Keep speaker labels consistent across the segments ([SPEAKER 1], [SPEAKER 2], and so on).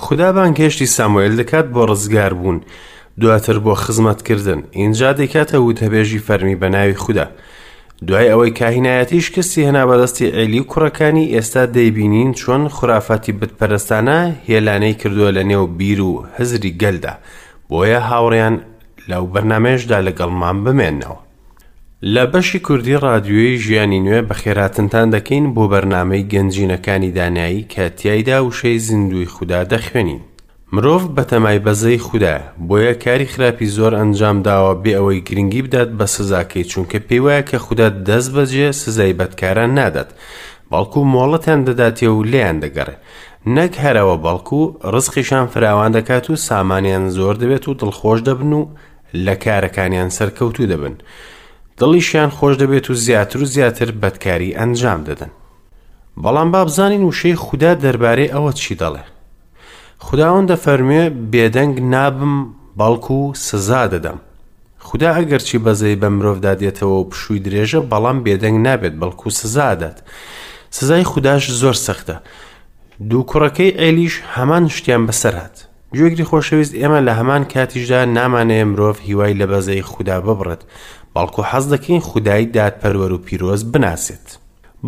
[SPEAKER 1] خودا بانگهێشتی ساموئێل دەکات بۆ ڕزگاربوون، دواتر بۆ خزمەتکردن، ئینجا دەیکاتە وتەبێژی فەرمی بە ناوی خودا. دوای ئەوەی کاهینایەتی شکستی هێنا بەدەستی عێلی و کوڕەکانی، ئێستا دەیبینین چۆن خورافاتی بتپەرستانە هێلانەی کردووە لە نێو بیر و هزری گەلدا. بۆیە هاوڕێیان لەو بەرنامەیەشدا لەگەڵمان بمێنەوە. لە بەشی کوردی ڕادیۆی ژیانی نوێ بەخێرهاتنتان دەکەین بۆ بەرنامەی گەنجینەکانی دانایی کە تیایدا وشەی زیندووی خودا دەخوێنین. مرۆڤ بەتەمای بەزەی خودایە، بۆیە کاری خراپی زۆر ئەنجام داوە بێ ئەوەی گرنگی بدات بە سزاکەی چونکە پێی وایە کە خودا دەست بەجێ سزای بەدکاران نادات بەڵکو مۆڵەتیان دەداتێ و لێیان دەگەڕێ نەک هەرەوە بەڵکو ڕزقیشان فراوان دەکات و سامانیان زۆر دەبێت و دڵخۆش دەبن و لە کارەکانیان سەرکەوتوو دەبن دڵیشیان خۆش دەبێت و زیاتر و زیاتر بەدکاری ئەنجام دەدەن بەڵام با بزانین وشەی خودا دەربارەی ئەوە چی دەڵێ خداوەند دەفەرموێ بێدەنگ نابم بەڵکو سزا دەدەم خودا ئەگەرچی بەزەی بە مرۆڤدا دێتەوە و پشووی درێژە بەڵام بێدەنگ نابێت بەڵکو سزا دەدات سزای خوداش زۆر سەختە دوو کوڕەکەی ئێلیش هەمان شتیان بەسەر هات گوێگری خۆشەویست ئێمە لە هەمان کاتیشدا نامانەیە مرۆڤ هیوای لە بەزەی خودا ببڕێت بەڵکو حەز دەکەین خودای دادپەروەر و پیرۆز بناسێت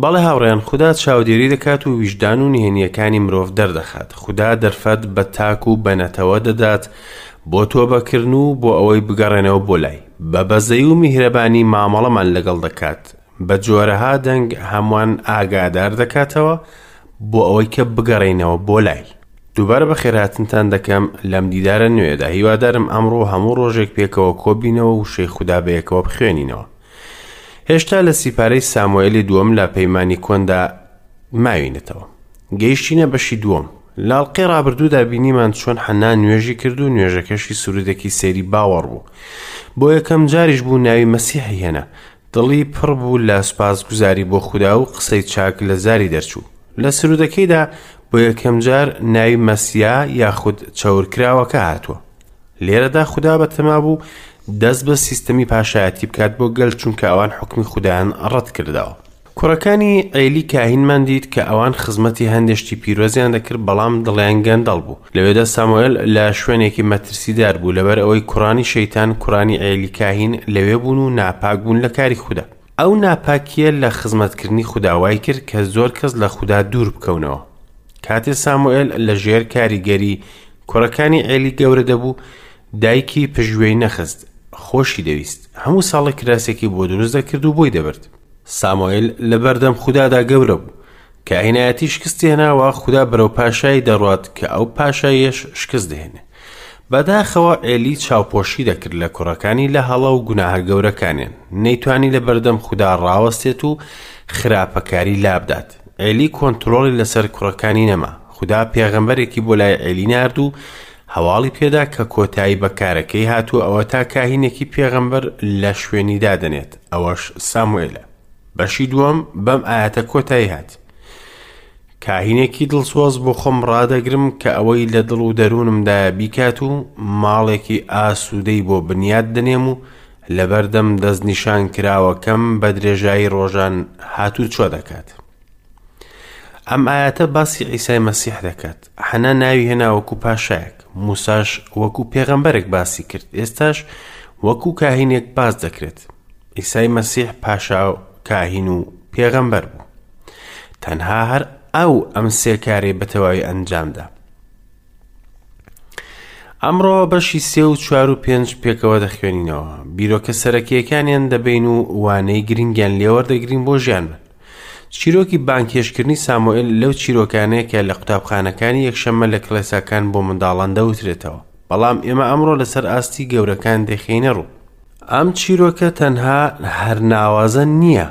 [SPEAKER 1] بەڵێ هاوڕێیان خودا چاودێری دەکات و ویژدان و نهێنییەکانی مرۆڤ دەردەخات خودا دەرفەت بە تاک و بە نەتەوە دەدات بۆ تۆبەکردن و بۆ ئەوەی بگەڕێنەوە بۆ لای بە بەزەی و میهرەبانی مامەڵەمان لەگەڵ دەکات بە جۆرەها دەنگ هەمووان ئاگادار دەکاتەوە بۆ ئەوەی کە بگەڕێینەوە بۆ لای. دووبارە بەخێرهاتنتان دەکەم لەم دیدارە نوێیەدا هیوادارم ئەمڕۆ هەموو ڕۆژێک پێکەوە کۆبینەوە وشەی خودا بەیەکەوە بخوێنینەوە. هێشتا لە سیپارەی ساموئێلی دووەم لە پەیمانی کۆندا ماوینەتەوە. گەیشتینە بەشی دووەم. لە ئەڵقەی ڕابردوودا بینیمان چۆن حەنا نوێژی کرد و نوێژەکەشی سرودێکی سەیری باوەڕ بوو. بۆ یەکەم جاریش بوو ناوی مەسیحی هێنا. دڵی پڕ بوو لە سوپاسگوزاری بۆ خودا و قسەی چاک لە زاری دەرچوو. لە سرودەکەیدا بۆ یەکەم جار ناوی مەسیا یاخود چەورکراوەکە هاتووە. لێرەدا خودا بەتەما بوو دەست بە سیستەمی پاشایەتی بکات بۆ گەل چونکە ئەوان حوکمی خودایان ڕەت کردەوە. کوڕەکانی عێلی کاهینمان دیت کە ئەوان خزمەتی هەندێ شتی پیرۆزیان دەکرد بەڵام دڵیان گەندەڵ بوو. لەوێدا ساموئێل لە شوێنێکی مەترسیدار بوو لەبەر ئەوەی کوڕانی شەیتان کوڕانی عێلی کاهین لەوێ بوون و ناپاک بوون لە کاری خودا. ئەو ناپاکییە لە خزمەتکردنی خودا وای کرد کە زۆر کەس لە خودا دوور بکەونەوە. کاتێ ساموئێل لە ژێر کاریگەری کوڕەکانی عێلی گەورە دەبوو، دایکی پشتگوێی نەخست، خۆشی دەویست. هەموو ساڵێک کراسێکی بۆ دروست دەکرد و بۆی دەبرد. ساموئێل لەبەردەم خودادا گەورە بوو. کاهینایەتی شکستی هێنا و خودا بەرەو پاشایی دەڕوات کە ئەو پاشاییەش شکست دەهێنێ. بەداخەوە عێلی چاوپۆشی دەکرد لە کوڕەکانی لە هەڵە و گوناهە گەورەکانیان. نەیتوانی لەبەردەم خودا ڕاوەستێت و خراپەکاری لابدات. عێلی کۆنترۆڵی لەسەر کوڕەکانی نەما. خودا پێغەمبەرێکی بۆ لای عێلی نارد و هەواڵی پێدا کە کۆتایی بە کارەکەی هاتووە ئەوەتا کاهینێکی پێغەمبەر لە شوێنی دادەنێت، ئەوەش ساموئێلە. بەشی دووەم بەم ئایەتە کۆتایی هات. کاهینێکی دڵسۆز بۆ خۆم ڕادەگرم کە ئەوەی لە دڵ و دەروونمدایە بیکات و ماڵێکی ئاسوودەی بۆ بنیات دەنێم و لەبەردەم دەستنیشانکراوەکەم بە درێژایی ڕۆژان هاتوچۆ دەکات. ئەم ئایەتە باسی عیسای مەسیح دەکات. حەنا ناوی هێنا وەکو پاشایەک، موساش وەکو پێغەمبەرێک باسی کرد، ئێستاش وەکو کاهینێک باس دەکرێت. عیسای مەسیح پاشا و کاهین و پێغەمبەر بوو. تەنها هەر ئەو ئەم سێ کارەی بە تەواوی ئەنجامدا. ئەمڕۆ بەشی سێ و چوار و پێنج پێکەوە دەخوێنینەوە. بیرۆکە سەرەکییەکانیان دەبین و وانەی گرنگیان لێوەردەگرین بۆ ژیانمان. چیرۆکی بانگهێشتکردنی ساموئێل لەو چیرۆکانەیە کە لە قوتابخانەکانی یەکشەممە لە کڵێساکان بۆ منداڵان دەوترێتەوە، بەڵام ئێمە ئەمڕۆ لەسەر ئاستی گەورەکان دەیخەینە ڕوو. ئەم چیرۆکە تەنها هەر ناوازە نییە،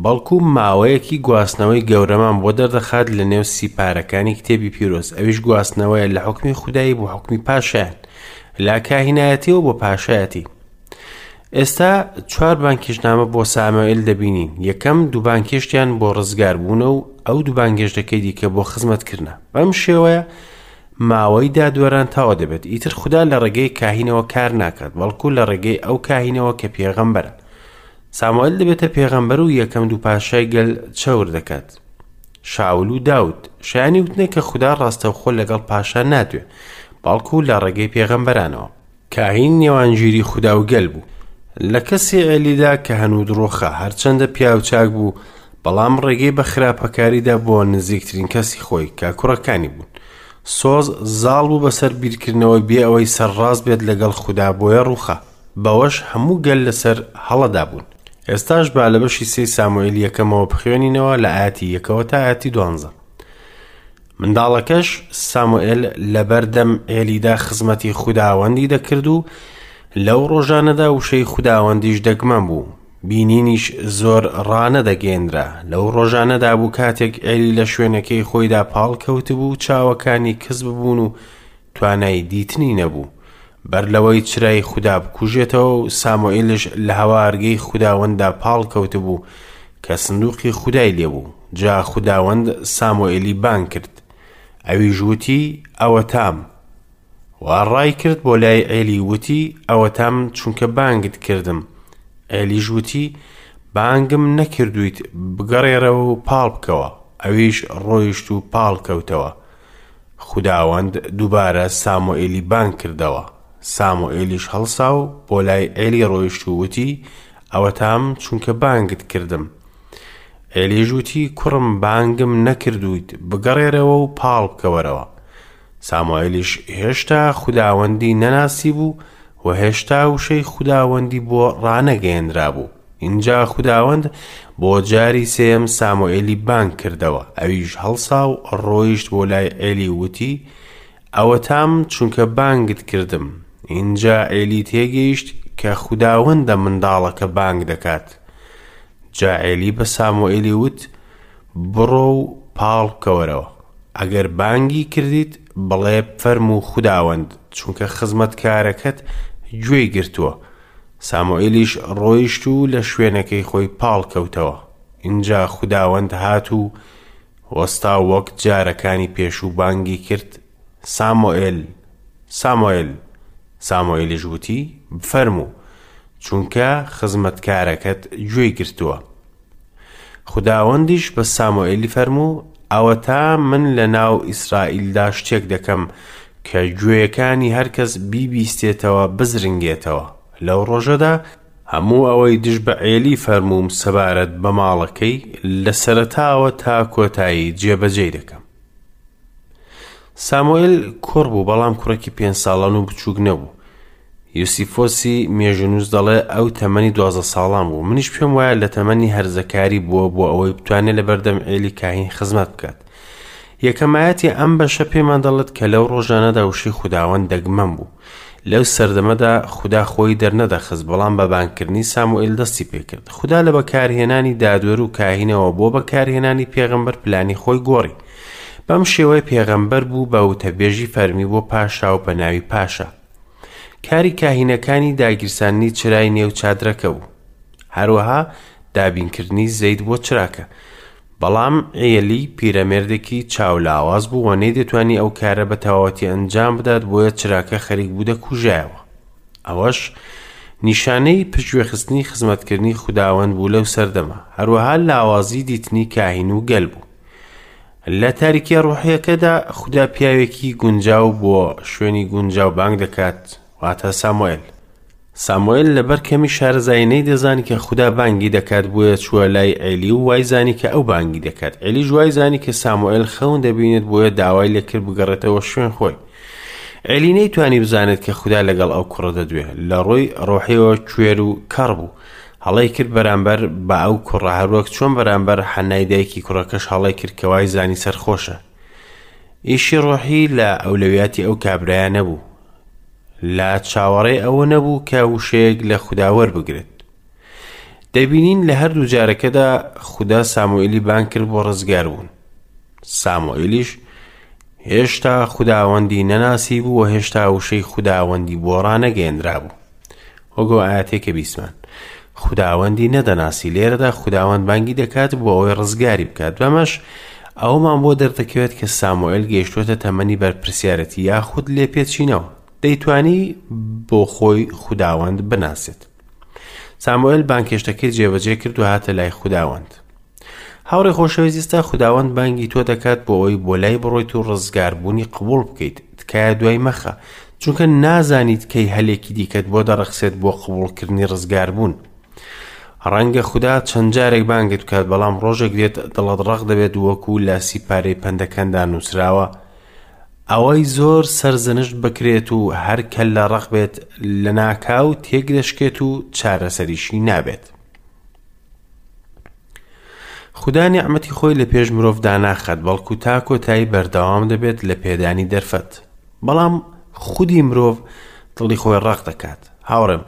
[SPEAKER 1] بەڵکو ماوەیەکی گواستنەوەی گەورەمان بۆ دەردەخات لە نێو سیپارەکانی کتێبی پیرۆز، ئەویش گواستنەوەیە لە حوکمی خودایی بۆ حوکمی پاشایان، لە کاهینایەتیەوە بۆ پاشایەتی. ئێستا چوار بانگهێشتنامە بۆ ساموئێل دەبینین، یەکەم دوو بانگهێشتیان بۆ ڕزگاربوونە و ئەو دوو بانگهێشتەکەی دیکە بۆ خزمەتکردنە. بەم شێوەیە ماوەی دادوەران تەواو دەبێت. ئیتر خودا لە ڕێگەی کاهینەوە کار ناکات، بەڵکو لە ڕێگەی ئەو کاهینەوە کە پێغەمبەرە. ساموئێل دەبێتە پێغەمبەر و یەکەم دوو پاشای گەل چەور دەکات. شاول و داود. شایانی وتنە کە خودا ڕاستەوخۆ لەگەڵ پاشا نادوێ، بەڵکو لە ڕێگەی پێغەمبەرانەوە. کاهین نێوانگیری خودا و گەل بوو. لە کەسی عێلیدا کە هەنوود ڕووخا، هەرچەندە پیاوچاک بوو، بەڵام ڕێگەی بە خراپەکاریدا بۆ نزیکترین کەسی خۆی کە کوڕەکانی بوون. سۆز زاڵ بوو بەسەر بیرکردنەوەی بێ ئەوەی سەرڕاست بێت لەگەڵ خودا بۆیە ڕووخا. بەوەش هەموو گەل لەسەر هەڵەدا بوون. ئێستاش با لە بەشی سێی ساموئێلی یەکەمەوە بخوێنینەوە لە ئایەتی یەکەوە تا ئایەتی دوانزە. منداڵەکەش ساموئێل لەبەردەم عێلیدا خزمەتی خوداوەندی دەکرد و لەو ڕۆژانەدا وشەی خوداوەندیش دەگمەن بوو، بینینیش زۆر ڕانەدەگەیەنرا. لەو ڕۆژانەدا بوو کاتێک عێلی لە شوێنەکەی خۆیدا پاڵ کەوتبوو، چاوەکانی کز ببوون و توانای دیتنی نەبوو. بەر لەوەی چرای خودا بکوژێتەوە و ساموئێلیش لە هەوارگەی خوداوەنددا پاڵ کەوتبوو کە سندوقی خودای لێبوو. جا خوداوەند ساموئێلی بانگ کرد. ئەویش وتی، ئەوەتام. و ڕایکرد بۆ لای عێلی وتی، ئەوەتام چونکە بانگت کردم. عێلیش وتی، بانگم نەکردوویت، بگەڕێرەوە و پاڵ بکەوە. ئەویش ڕۆیشت و پاڵ کەوتەوە. خوداوەند دووبارە ساموئێلی بانگ کردەوە. ساموئێلیش هەڵسا و بۆ لای عێلی ڕۆیشت و وتی، ئەوەتام چونکە بانگت کردم. عێلیش وتی، کوڕم بانگم نەکردوویت، بگەڕێرەوە و پاڵ بکەوەرەوە. ساموئێلیش هێشتا خوداوەندی نەناسیبوو و هێشتا وشەی خوداوەندی بۆ ڕانەگەیەنرابوو. ئینجا خوداوەند بۆ جاری سێیەم ساموئێلی بانگ کردەوە، ئەویش هەڵسا و ڕۆیشت بۆ لای عێلی و وتی، ئەوەتام چونکە بانگت کردم. ئینجا عێلی تێگەیشت کە خوداوەندە منداڵەکە بانگ دەکات. جا عێلی بە ساموئێلی وت، بڕۆ و پاڵ بکەوەرەوە. ئەگەر بانگی کردیت، بڵێ فەرموو خوداوەند، چونکە خزمەتکارەکەت گوێی گرتووە. ساموئێلیش ڕۆیشت و لە شوێنەکەی خۆی پاڵکەوتەوە. ئینجا خوداوەند هات و وەستا و وەک جارەکانی پێشوو بانگی کرد، ساموئێل! ساموئێل! ساموئێلیش وتی، بفەرموو، چونکە خزمەتکارەکەت گوێی گرتووە. خوداوەندیش بە ساموئێلی فەرموو، ئەوەتا من لەناو ئیسرائیلدا شتێک دەکەم کە گوێیەکانی هەرکەس بیبیستێتەوە بزرنگێتەوە. لەو ڕۆژەدا هەموو ئەوەی دژ بە عێلی فەرمووم سەبارەت بە ماڵەکەی، لە سەرەتاوە تا کۆتایی جێبەجێی دەکەم. ساموئێل کوڕ بوو، بەڵام کوڕێکی پێنج ساڵان و بچووک نەبوو. یوسیفۆسی مێژوونووس دەڵێ ئەو تەمەنی دوازدە ساڵان بوو. منیش پێم وایە لە تەمەنی هەرزەکاری بووە بۆ ئەوەی بتوانێت لە بەردەم عێلی کاهین خزمەت بکات. یەکەمایەتی ئەم بەشە پێمان دەڵێت کە لەو ڕۆژانەدا وشەی خوداوەند دەگمەن بوو. لەو سەردەمەدا خودا خۆی دەرنەدەخست، بەڵام بە بانگکردنی ساموئێل دەستی پێکرد. خودا لە بەکارهێنانی دادوەر و کاهینەوە بۆ بەکارهێنانی پێغەمبەر پلانی خۆی گۆڕی. بەم شێوەیە پێغەمبەر بوو بە وتەبێژی فەرمی بۆ پاشا و بە ناوی پاشا. کاری کاهینەکانی داگیرساندنی چرای نێو چادرەکە بوو. هەروەها دابینکردنی زەیت بۆ چراکە. بەڵام عێلی پیرەمێردێکی چاولاواز بوو و نەیدەتوانی ئەو کارە بە تەواوەتی ئەنجام بدات بۆیە چراکە خەریک بوو دەکوژایەوە. ئەوەش نیشانەی پشتگوێخستنی خزمەتکردنی خوداوەند بوو لەو سەردەمە. هەروەها لاوازی دیتنی کاهین و گەل بوو. لە تاریکیە ڕوحیەکەدا خودا پیاوێکی گونجاو بۆ شوێنی گونجاو بانگ دەکات، واتە ساموئێل. ساموئێل لەبەر کەمی شارەزایی نەیدەزانی کە خودا بانگی دەکات بۆیە چووە لای عێلی و وایزانی کە ئەو بانگی دەکات. عێلیش وایزانی کە ساموئێل خەون دەبینێت بۆیە داوای لێکرد بگەڕێتەوە شوێن خۆی. عێلی نەیتوانی بزانێت کە خودا لەگەڵ ئەو کوڕە دەدوێ. لە ڕووی ڕۆحیەوە کوێر و کەڕ بوو. هەڵەی کرد بەرامبەر بە ئەو کوڕە هەروەک چۆن بەرامبەر حەنای دایکی کوڕەکەش هەڵەی کرد کە وای زانی سەرخۆشە. ئیشی ڕۆحی لە ئەولەویاتی ئەو کابرایە نەبوو. لە چاوەڕێ ئەوە نەبوو کە وشەیەک لە خودا وەربگرێت. دەبینین لە هەردوو جارەکەدا خودا ساموئێلی بانگ کرد بۆ ڕزگاربوون. ساموئێلیش هێشتا خوداوەندی نەناسی بوو و هێشتا وشەی خوداوەندی بۆ ڕانەگەیەنرابوو. وەک ئەو ئایەتەی کە بیستمان. خوداوەندی نەدەناسی لێرەدا خوداوەند بانگی دەکات بۆ ئەوەی ڕزگاری بکات بەمەش ئەومان بۆ دەردەکەوێت کە ساموئێل گەیشتووەتە تەمەنی بەرپرسیارەتی یاخود لێپێچینەوە دەیتوانی بۆ خۆی خوداوەند بناسێت ساموئێل بانگهێشتەکەی جێبەجێ کرد و هاتە لای خوداوەند. هاوڕێ خۆشەویست ئێستا خوداوەند بانگی تۆ دەکات بۆ ئەوەی بۆ لای بڕۆیت و ڕزگاربوونی قبوڵ بکەیت. تکایە دوای مەخە، چونکە نازانیت کەی هەلێکی دیکەت بۆ دەڕەخسێت بۆ قبوڵکردنی ڕزگاربوون. ڕەنگە خودا چەند جارێک بانگت بکات، بەڵام ڕۆژێک دێت دڵت ڕەق دەبێت وەکو لە سیپارەی پەندەکاندا نووسراوە، ئەوەی زۆر سەرزەنشت بکرێت و هەر کەللە ڕەق بێت لەناکاو تێک دەشکێت و چارەسەریشی نابێت. خودا نیعمەتی خۆی لە پێش مرۆڤ داناخات، بەڵکو تا کۆتایی بەردەوام دەبێت لە پێدانی دەرفەت. بەڵام خودی مرۆڤ دڵی خۆی ڕەق دەکات. هاوڕێم،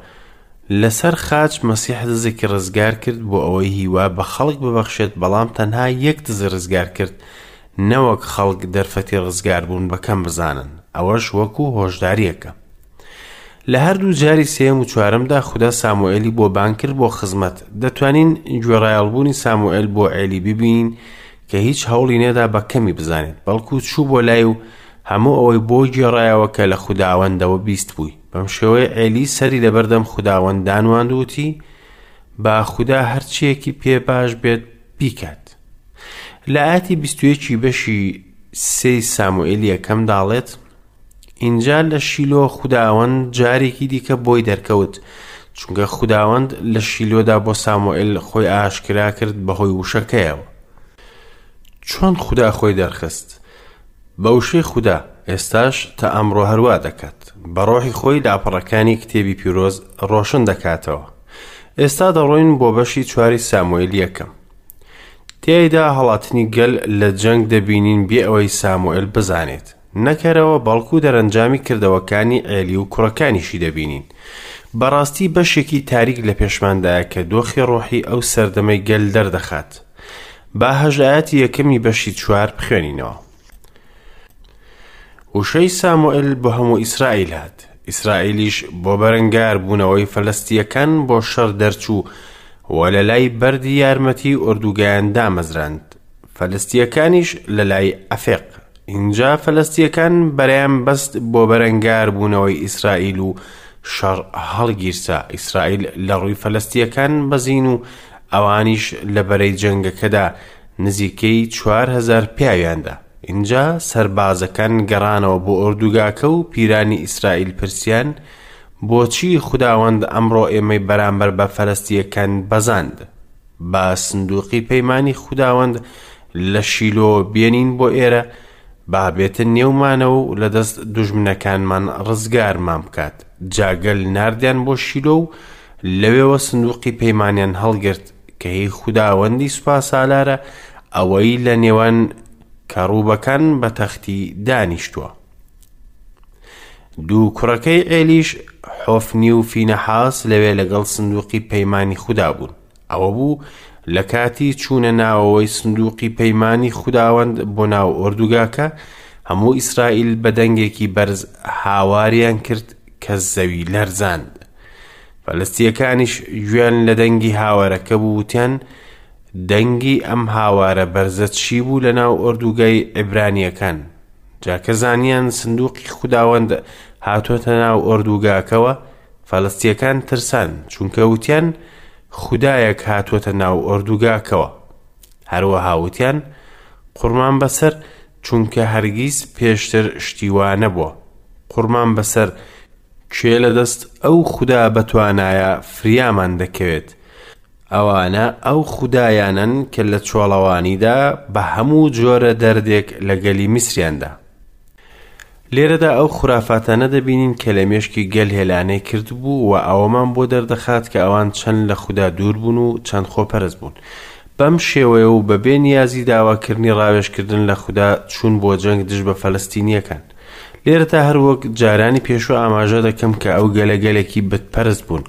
[SPEAKER 1] لەسەر خاچ مەسیح دزێکی ڕزگار کرد بۆ ئەوەی هیوا بە خەڵک ببەخشێت، بەڵام تەنها یەک دزی ڕزگار کرد، نەوەک خەڵک دەرفەتی ڕزگاربوون بە کەم بزانن، ئەوەش وەکو هۆشدارییەکە. لە هەردوو جاری سێیەم و چوارەمدا خودا ساموئێلی بۆ بانگ کرد بۆ خزمەت. دەتوانین گوێڕایەڵبوونی ساموئێل بۆ عێلی ببینین کە هیچ هەوڵی نەدا بە کەمی بزانێت، بەڵکو چوو بۆ لای و هەموو ئەوەی بۆ گێڕایەوە کە لە خوداوەندەوە بیستبووی. بەم شێوەیە عێلی سەری لەبەردەم خوداوەند دانواند و وتی، با خودا هەرچییەکی پێ باش بێت بیکات. لە ئایەتی 21 ی بەشی سێی ساموئێلی یەکەمدا دەڵێت، ئینجا لە شیلۆ خوداوەند جارێکی دیکە بۆی دەرکەوت، چونکە خوداوەند لە شیلۆدا بۆ ساموئێل خۆی ئاشکرا کرد بەهۆی وشەکەیەوە. چۆن خودا خۆی دەرخست؟ بە وشەی خودا، ئێستاش تا ئەمڕۆ هەروا دەکات. بە ڕۆحی خۆی لاپەڕەکانی کتێبی پیرۆز ڕۆشن دەکاتەوە. ئێستا دەڕۆین بۆ بەشی چواری ساموئێلی یەکەم. تیایدا هەڵاتنی گەل لە جەنگ دەبینین بێ ئەوەی ساموئێل بزانێت. نەکەرەوە بەڵکو دەرەنجامی کردەوەکانی عێلی و کوڕەکانیشی دەبینین. بەڕاستی بەشێکی تاریک لە پێشماندایە کە دۆخی ڕۆحی ئەو سەردەمەی گەل دەردەخات. با هەشت ئایەتی یەکەمی بەشی چوار بخوێنینەوە. وشەی ساموئێل بۆ هەموو ئیسرائیل هات. ئیسرائیلیش بۆ بەرەنگاربوونەوەی فەلەستییەکان بۆ شەڕ دەرچوو و لە لای بەردی یارمەتی ئۆردوگایان دامەزراند، فەلەستییەکانیش لە لای ئەفێق. ئینجا فەلەستییەکان بەرەیان بەست بۆ بەرەنگاربوونەوەی ئیسرائیل و شەڕ هەڵگیرسا، ئیسرائیل لە ڕووی فەلەستییەکان بەزین و ئەوانیش لە بەرەی جەنگەکەدا نزیکەی 4000 پیاویان دا. ئینجا سەربازەکان گەڕانەوە بۆ ئۆردوگاکە و پیرانی ئیسرائیل پرسیان، بۆچی خوداوەند ئەمڕۆ ئێمەی بەرامبەر بە فەلەستییەکان بەزاند؟ با سندوقی پەیمانی خوداوەند لە شیلۆ بێنین بۆ ئێرە، با بێتە نێومانەوە و لە دەست دوژمنەکانمان ڕزگارمان بکات. جا گەل ناردیان بۆ شیلۆ و لەوێوە سندوقی پەیمانیان هەڵگرت کە هی خوداوەندی سوپاسالارە، ئەوەی لە نێوان کەڕوبەکان بە تەختی دانیشتووە. دوو کوڕەکەی عێلیش حۆفنی و فینەحاس لەوێ لەگەڵ سندوقی پەیمانی خودا بوون. ئەوە بوو لە کاتی چوونە ناوەوەی سندوقی پەیمانی خوداوەند بۆ ناو ئۆردوگاکە، هەموو ئیسرائیل بە دەنگێکی بەرز هاواریان کرد کە زەوی لەرزاند. فەلەستییەکانیش گوێیان لە دەنگی هاوارەکە بوو وتیان، دەنگی ئەم هاوارە بەرزە چی بوو لە ناو ئۆردوگای عیبرانییەکان؟ جا کە زانیان سندوقی خوداوەند هاتۆتە ناو ئۆردوگاکەوە، فەلەستییەکان ترسان، چونکە وتیان، خودایەک هاتووەتە ناو ئۆردوگاکەوە. هەروەها وتیان، قوڕمان بەسەر، چونکە هەرگیز پێشتر شتی وا نەبووە. قوڕمان بەسەر، کێ لە دەست ئەو خودا بەتوانایە فریامان دەکەوێت؟ ئەوانە ئەو خودایانەن کە لە چۆڵەوانیدا بە هەموو جۆرە دەردێک لە گەلی میسریان دا. لێرەدا ئەو خورافاتانە دەبینین کە لە مێشکی گەل هێلانەی کردبوو و ئەوەمان بۆ دەردەخات کە ئەوان چەند لە خودا دوور بوون و چەند خۆپەرست بوون. بەم شێوەیە و بەبێ نیازی داواکردنی ڕاوێژکردن لە خودا چوون بۆ جەنگ دژ بە فەلەستینییەکان. لێرەدا هەروەک جارانی پێشوو ئاماژە دەکەم کە ئەو گەلە گەلێکی بتپەرست بوون.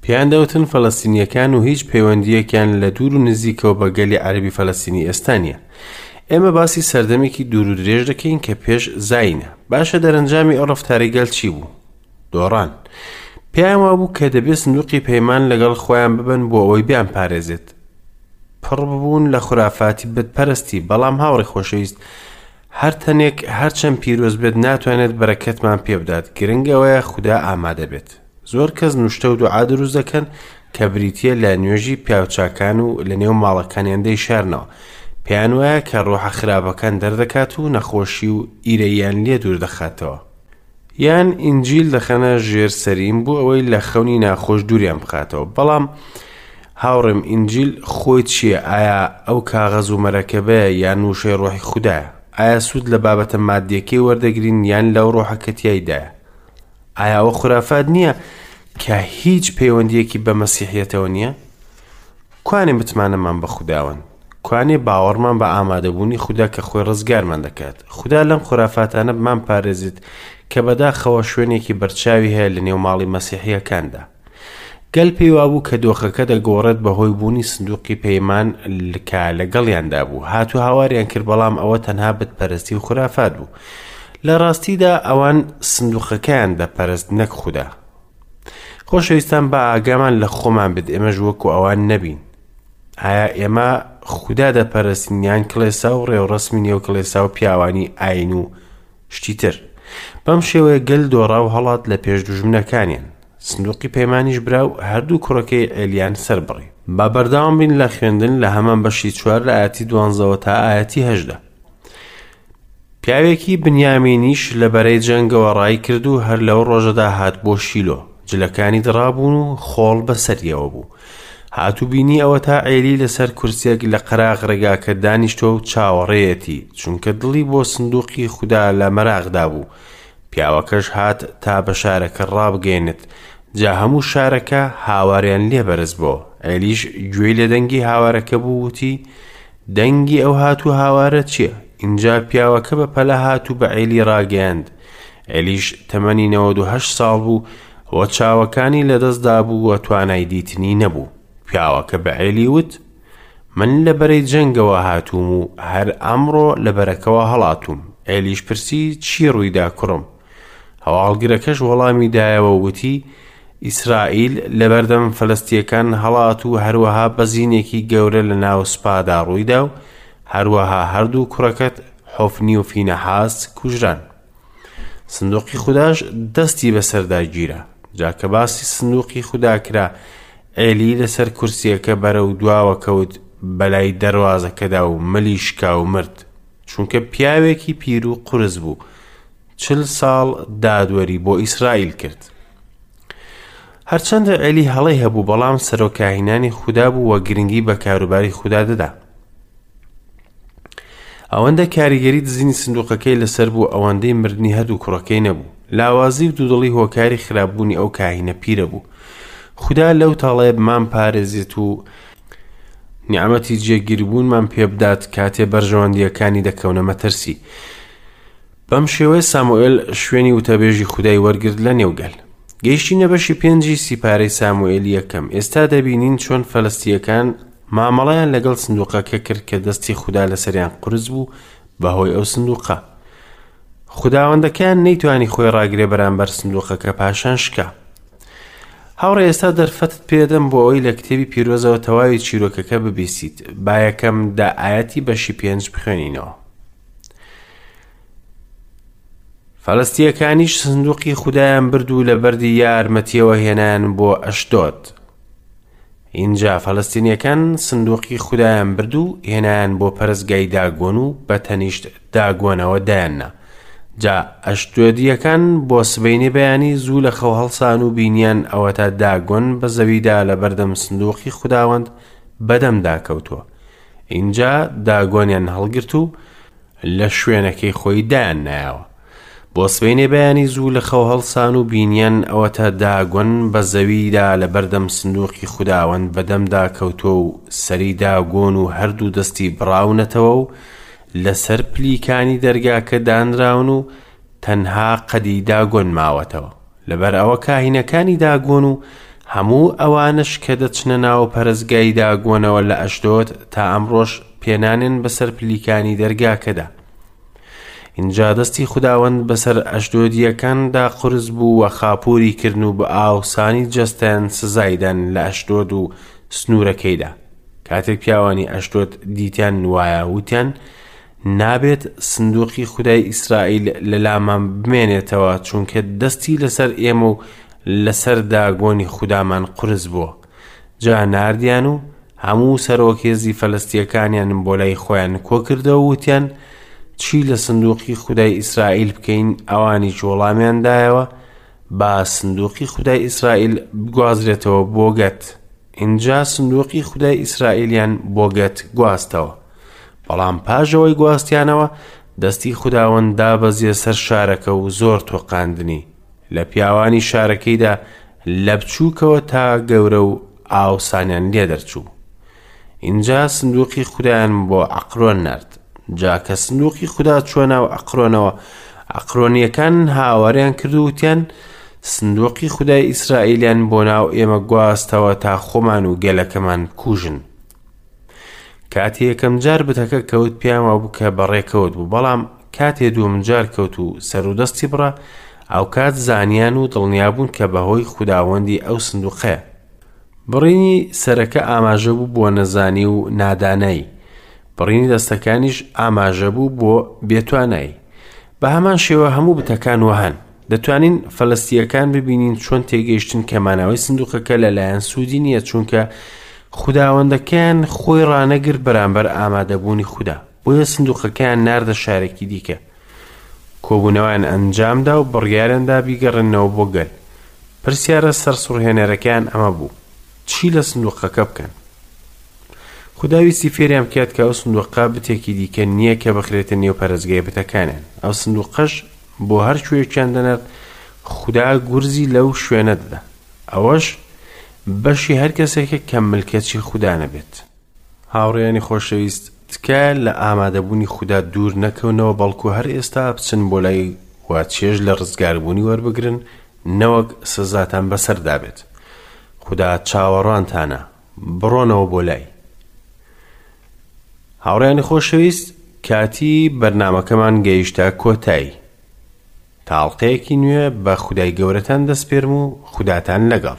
[SPEAKER 1] پێیان دەوتن فەلەستینییەکان و هیچ پەیوەندییەکیان لە دوور و نزیکەوە بە گەلی عەرەبی فەلەستینی ئێستا نییە. ئێمە باسی سەردەمێکی دوور و درێژ دەکەین کە پێش زایینە. باشە دەرەنجامی ئەو ڕەفتارەی گەل چی بوو؟ دۆڕان. پێیان وابوو کە دەبێ سندوقی پەیمان لەگەڵ خۆیان ببەن بۆ ئەوەی بیانپارێزێت. پڕ ببوون لە خورافاتی بتپەرستی، بەڵام هاوڕێ خۆشەویست، هەر تەنێک هەرچەند پیرۆز بێت ناتوانێت بەرەکەتمان پێ بدات، گرنگ ئەوەیە خودا ئامادە بێت. زۆر کەس نوشتە و دوعا دروست دەکەن کە بریتییە لە نوێژی پیاوچاکان و لە نێو ماڵەکانیان دەیشارنەوە. پێیان وایە کە ڕۆحە خراپەکان دەردەکات و نەخۆشی و ئیرەییان لێ دوور دەخاتەوە. یان ئینجیل دەخەنە ژێر سەرین بۆ ئەوەی لە خەونی ناخۆش دووریان بخاتەوە. بەڵام هاوڕێم ئینجیل خۆی چییە؟ ئایا ئەو کاغەز و مەرەکەبەیە یان وشەی ڕۆحی خودایە؟ ئایا سوود لە بابەتە مادیەکەی وەردەگرین یان لەو ڕۆحە کە تیایدایە؟ ئایا ئەوە خورافات نییە کە هیچ پەیوەندیەکی بە مەسیحیەتەوە نییە؟ کوانێ متمانەمان بە خوداوەند؟ کوانێ باوەڕمان بە ئامادەبوونی خودا کە خۆی ڕزگارمان دەکات؟ خودا لەم خورافاتانە بمان پارێزێت کە بەداخەوە شوێنێکی بەرچاوی هەیە لە نێو ماڵی مەسیحیەکاندا. گەل پێی وابوو کە دۆخەکە دەگۆڕێت بەهۆی بوونی سندوقی پەیمان کە لەگەڵیاندا بوو. هات و هاواریان کرد بەڵام ئەوە تەنها بتپەرستی و خورافات بوو. لە ڕاستیدا ئەوان سندوقەکەیان دەپەرست نەک خودا. خۆشەویستان با ئاگامان لە خۆمان بێت ئێمەش وەکو ئەوان نەبین. ئایا ئێمە خودا دەپەرستین یان کڵێسا و ڕێوڕەسمی نێو کڵێسا و پیاوانی ئاین و شتی تر؟ بەم شێوەیە گەل دۆڕا و هەڵات لە پێش دوژمنەکانیان. سندوقی پەیمانیش برا و هەردوو کوڕەکەی عێلیان سەربڕی. با بەردەوام بین لە خوێندن لە هەمان بەشی چوار لە ئایەتی دوانزەوە تا ئایەتی هەژدە. پیاوێکی بنیامینیش لە بەرەی جەنگەوە ڕای کرد و هەر لەو ڕۆژەدا هات بۆ شیلۆ. جلەکانی دڕابوون و خۆڵ بەسەریەوە بوو. هات و بینی ئەوەتا عێلی لەسەر کورسیەک لە قەراغ ڕێگاکە دانیشتووە و چاوەڕێیەتی، چونکە دڵی بۆ سندوقی خودا لە مەراقدا بوو. پیاوەکەش هات تا بە شارەکە ڕابگەیەنێت، جا هەموو شارەکە هاواریان لێ بەرز بۆوە. عێلیش گوێی لە دەنگی هاوارەکە بوو، وتی، دەنگی ئەو هات و هاوارە چییە؟ ئینجا پیاوەکە بە پەلە هات و بە عێلی ڕاگەیاند. عێلیش تەمەنی 98 ساڵ بوو و چاوەکانی لەدەست دابوو و توانای دیتنی نەبوو. پیاوەکە بە عێلی وت، من لە بەرەی جەنگەوە هاتووم و هەر ئەمڕۆ لە بەرەکەوە هەڵاتووم. عێلیش پرسی، چی ڕوویدا کوڕم؟ هەواڵگرەکەش وەڵامی دایەوە و وتی، ئیسرائیل لەبەردەم فەلەستییەکان هەڵات و هەروەها بەزینێکی گەورە لە ناو سوپادا ڕوویدا و هەروەها هەردوو کوڕەکەت حۆفنی و فینەحاس کوژران. سندوقی خوداش دەستی بەسەردا گیرا. جا کە باسی سندوقی خودا کرا، عێلی لەسەر کورسییەکە بەرەو دواوە کەوت بەلای دەروازەکەدا و ملی شکا و مرد، چونکە پیاوێکی پیر و قورس بوو، چل ساڵ دادوەری بۆ ئیسرائیل کرد. هەرچەندە عێلی هەڵەی هەبوو، بەڵام سەرۆک کاهینانی خودا بوو و گرنگی بە کاروباری خودا دەدا. ئەوەندە کاریگەری دزینی سندوقەکەی لەسەر بوو ئەوەندەی مردنی هەردوو کوڕەکەی نەبوو. لاوازی و دوودڵی هۆکاری خراپبوونی ئەو کاهینە پیرە بوو. خودا لەو تاڵەیە بمان پارێزێت و نیعمەتی جێگیربوونمان پێبدات کاتێ بەرژەوەندییەکانی دەکەونە مەترسی. بەم شێوەیە ساموئێل شوێنی وتەبێژی خودای وەرگرت لە نێو گەل. گەیشتینە بەشی پێنجی سیپارەی ساموئێلی یەکەم. ئێستا دەبینین چۆن فەلەستییەکان مامەڵەیان لەگەڵ سندوقەکە کرد کە دەستی خودا لەسەریان قورس بوو بەهۆی ئەو سندوقە. خوداوەندەکەیان نەیتوانی خۆی ڕاگرێ بەرامبەر سندوقەکە پاشان شکا. هاوڕێ ئێستا دەرفەتت پێدەم بۆ ئەوەی لە کتێبی پیرۆزەوە تەواوی چیرۆکەکە ببیستیت. با یەکەم دە ئایەتی بەشی پێنج بخوێنینەوە. فەلەستییەکانیش سندوقی خودایان برد و لە بەردی یارمەتیەوە هێنایان بۆ ئەشدۆد. ئینجا فەلەستینیەکان سندوقی خودایان برد و هێنایان بۆ پەرستگای داگۆن و بە تەنیشت داگۆنەوە دایاننا. جا ئەشدۆدییەکان بۆ سبەینێ بەیانی زوو لە خەو هەڵسان و بینیان ئەوەتا داگۆن بە زەویدا لەبەردەم سندوقی خوداوەند بەدەمدا کەوتووە. ئینجا داگۆنیان هەڵگرت و لە شوێنەکەی خۆی دایاننایەوە. بۆ سبەینێ بەیانی زوو لە خەو هەڵسان و بینیان ئەوەتا داگۆن بە زەویدا لە بەردەم سندوقی خوداوەند بەدەمدا کەوتووە و سەری داگۆن و هەردوو دەستی بڕاونەتەوە و لەسەر پلیکانی دەرگاکە دانراون و تەنها قەدی داگۆن ماوەتەوە. لەبەر ئەوە کاهینەکانی داگۆن و هەموو ئەوانەش کە دەچنە ناو پەرستگای داگۆنەوە لە ئەشدۆد تا ئەمڕۆش پێنانێن بەسەر پلیکانی دەرگاکەدا. ئینجا دەستی خوداوەند بەسەر ئەشدۆدییەکاندا قورس بوو و خاپووری کردن و بە ئاوسانی جەستەیان سزای دان لە ئەشدۆد و سنوورەکەیدا. کاتێک پیاوانی ئەشدۆد دیتیان وایە وتیان، نابێت سندوقی خودای ئیسرائیل لە لامان بمێنێتەوە، چونکە دەستی لەسەر ئێمە و لەسەر داگۆنی خودامان قورس بووە. جا ناردیان و هەموو سەرۆک هێزی فەلەستییەکانیان بۆ لای خۆیان کۆکردەوە و وتیان، چی لە سندوقی خودای ئیسرائیل بکەین؟ ئەوانیش وەڵامیان دایەوە، با سندوقی خودای ئیسرائیل بگوازرێتەوە بۆ گەت. ئینجا سندوقی خودای ئیسرائیلیان بۆ گەت گواستەوە. بەڵام پاش ئەوەی گواستیانەوە، دەستی خوداوەند دابەزیە سەر شارەکە و زۆر تۆقاندنی. لە پیاوانی شارەکەیدا لە بچووکەوە تا گەورە و ئاوسانیان لێ دەرچوو. ئینجا سندوقی خودایان بۆ عەقرۆن نارد. جا کە سندوقی خودا چووە ناو عەقرۆنەوە، عەقرۆنییەکان هاواریان کرد و وتیان، سندوقی خودای ئیسرائیلیان بۆ ناو ئێمە گواستەوە تا خۆمان و گەلەکەمان بکوژن. کاتێ یەکەم جار بتەکە کەوت پێیان وابوو کە بەڕێکەوت بوو، بەڵام کاتێ دووەم جار کەوت و سەر و دەستی بڕا، ئەوکات زانیان و دڵنیا بوون کە بەهۆی خوداوەندی ئەو سندوقەیە. بڕینی سەرەکە ئاماژە بوو بۆ نەزانی و نادانایی، بڕینی دەستەکانیش ئاماژە بوو بۆ بێتوانایی. بە هەمان شێوە هەموو بتەکان وەهان. دەتوانین فەلەستییەکان ببینین چۆن تێگەیشتن کە مانەوەی سندوقەکە لەلایەن سوودی نییە چونکە خوداوەندەکەیان خۆی ڕانەگرت بەرامبەر ئامادەبوونی خودا بۆیە سندوقەکەیان ناردە شارێکی دیکە کۆبوونەوەیان ئەنجامدا و بڕیاریاندا بیگەڕێننەوە بۆ گەل پرسیارە سەرسوڕهێنەرەکەیان ئەمە بوو چی لە سندوقەکە بکەن خودا ویستی فێریان بکات کە ئەو سندوقە بتێکی دیکە نییە کە بخرێتە نێو پەرستگای بتەکانیان ئەو سندوقەش بۆ هەر کوێیەکیان دەنارد خودا گورزی لەو شوێنە دەدا ئەوەش بەشی هەر کەسێکە کە ملکەچی خودا نەبێت. هاوڕێیانی خۆشەویست تکایە لە ئامادەبوونی خودا دوور نەکەونەوە بەڵکو هەر ئێستا بچن بۆ لای و چێژ لە ڕزگاربوونی وەربگرن نەوەک سزاتان بەسەردا بێت خودا چاوەڕوانتانە بڕۆنەوە بۆ لای. هاوڕێیانی خۆشەویست کاتی بەرنامەکەمان گەیشتە کۆتایی تا ئەڵقەیەکی نوێ بە خودای گەورەتان دەسپێرم و خوداتان لەگەڵ.